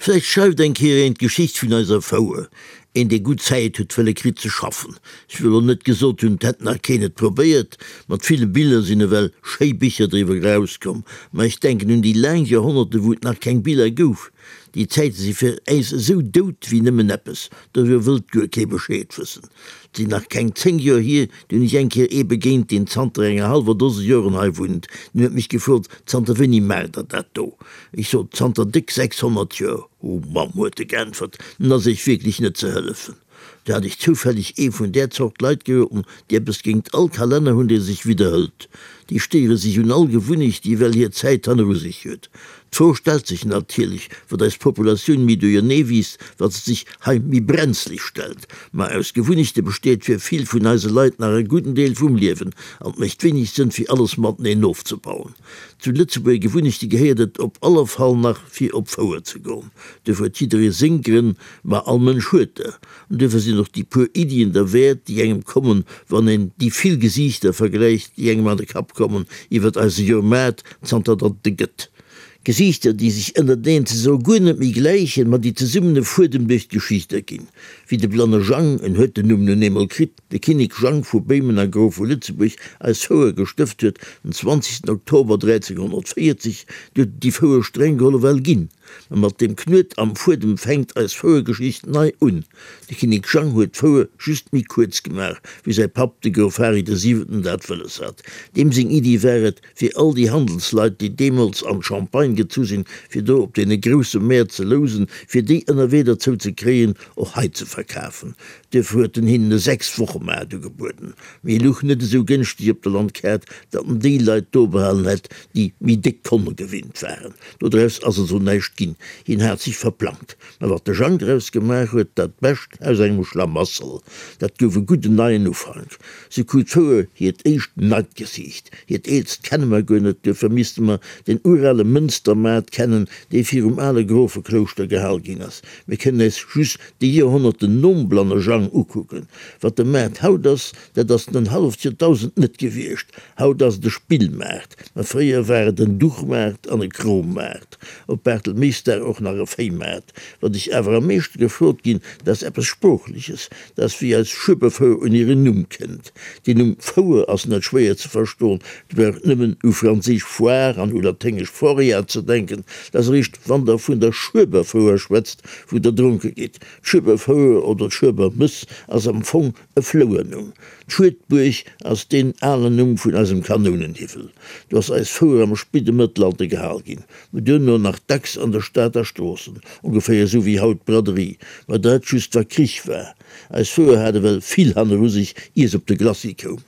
Vläicht schreift eng Kéier een d'Geschicht vun eiser Fouer, een dee gutt Zäit huet wëlle kritt ze schaffen. Ech wëll och net gesot hunn, 't hätt nach keen et probéiert, mat ville Biller sinn ewell schéi Bicher driwwer erauskomm, ma ech denken un déi laang Joerhonnerte wou et nach keng Biller gouf. Déi Zäite si fir äis esou dout wéi nëmmen eppes, doriwwer wëllt guer kee Bescheed wëssen. 't sinn nach keng 10 Joer hier, du hunn ech eng Kéier ee begéint, deen zanter enger hallwer Dose Joren hei wunnt. Deen huet mech gefrot, Zanter wéini maacht der dat do? Ech sot, Zanter déck 600 Joer. Oh Mamm, huet e geäntwert, nun ass Iech wierklech net ze hëllefen. Du hat ech zoufälleg ee vun där Zort Leit geroden, déi eppes géingt all Kalenner hunn, dee sech widderhëlt. Déi stéiere sech un all Gewunnecht, déi ewell hir Zäit hanneru sech huet. D'Fro stellt sech natierlech, wat eis Populatioun méi duerjernee wiisst, wat se sech hei méi brenzlig stellt. Ma aus Gewunnechte besteet fir vill vun eise Leit nach e gudden Deel vum Liewen, an 't mécht wéineg Sënn, fir alles mateneen ofzebauen. Zu Lëtzebuerger Gewunnechte gehéiert et op aller Fall nach fir op Fouer ze goen. Duerfir huet jidderee seng Grënn, ma all Mënsch huet der. An duerfir sinn och déi puer Iddien derwäert, déi engem kommen, wann een déi vill Gesiichter vergläicht, déi engem an de Kapp kommen iwwert eise Joermaart, zanter datt et e gëtt. Gesiichter, déi sech ënnerteneen ze soe guer net méi gläichen, ma déi zesummen e Fuedem duerch d'Geschicht erginn. Wéi de blanne Jang, en huet den Numm nun eemol kritt, de Kinnek Jang vu Béimen a Grof vu Lëtzebuerg, eis Fouer gestëft huet, den 20 Oktober 1340, du huet et déi Fouer streng geholl ewell ginn. Ma mat deem Knuet am Fuedem fänkt eis Fouergeschicht nei un. De Kinnek Jang huet d'Fouer just méi kuerz gemaach, wéi säi Papp, de Grof Hari de Siwenten, dat wëlles hat. Deem seng Iddi war et, fir all déi Handelsleit, déi deemools an d'Champagne gezu sinn, fir do op deene grousse Mäert ze lousen, fir déi ënnerwee derzou ze kréien, och hei ze verkafen. Duerfir huet en hinnen e Sechs-Woche-Maart ugebueden. Mee e luch net esou gënschteg op der Landkaart, datt en déi Leit do behalen hätt, déi méi déck Konne gewinnt waren. Dodraus ass also näischt ginn. Hien hat sech verplangt. Mä wat de Jang draus gemaach huet, dat Bescht aus engem Schlamassel, dat gouf e gudden neien Ufank. Se krut d'Fouer hiert éischt neit Gesiicht. Hiert eelst kenne mer guer net, duerfir misste mer den urale Mënstermaart kennen, dee virum ale Grofeklouschter gehal ginn ass. Mir kënnen äis just déi Joerhonnerten nom Blanne Jang ukucken. Wat de Maart haut ass, dat ass en en halleft Joerdausend net gewiescht. Haut ass et e Spillmaart, mä fréier war et en Duchmaart an e Krommaart. Op Bartelméisdag och nach e Véimaart. Wat ech awer am meeschte gefrot ginn, dat ass eppes Sproochleches, dat ass wéi eis Schueberfouer un hiren Numm kënnt. Deen Numm Fouer ass net schwéier ze verstoen, et brauch nëmmen u franséisch Foire an u laténgesch Foria ze denken. Dat ass eréischt wann der vun der Schueberfouer schwätzt, wou der dronke gitt. D'Schueberfouer oder d'Schuebermëss ass am Fong e Flouernumm. D'Schuedbuerg ass deen alen Numm vun eisem Kanounenhiwwel. Do ass eis Fouer am spidde Mëttelalter gehal ginn, mä duerno nach dacks an der Stad a Stroossen, ongeféier esou wéi haut d'Braderie, mä dat just wa Krich war. Eis Fouer hat ewell vill hanneru sech, ier se op de Glacis koum.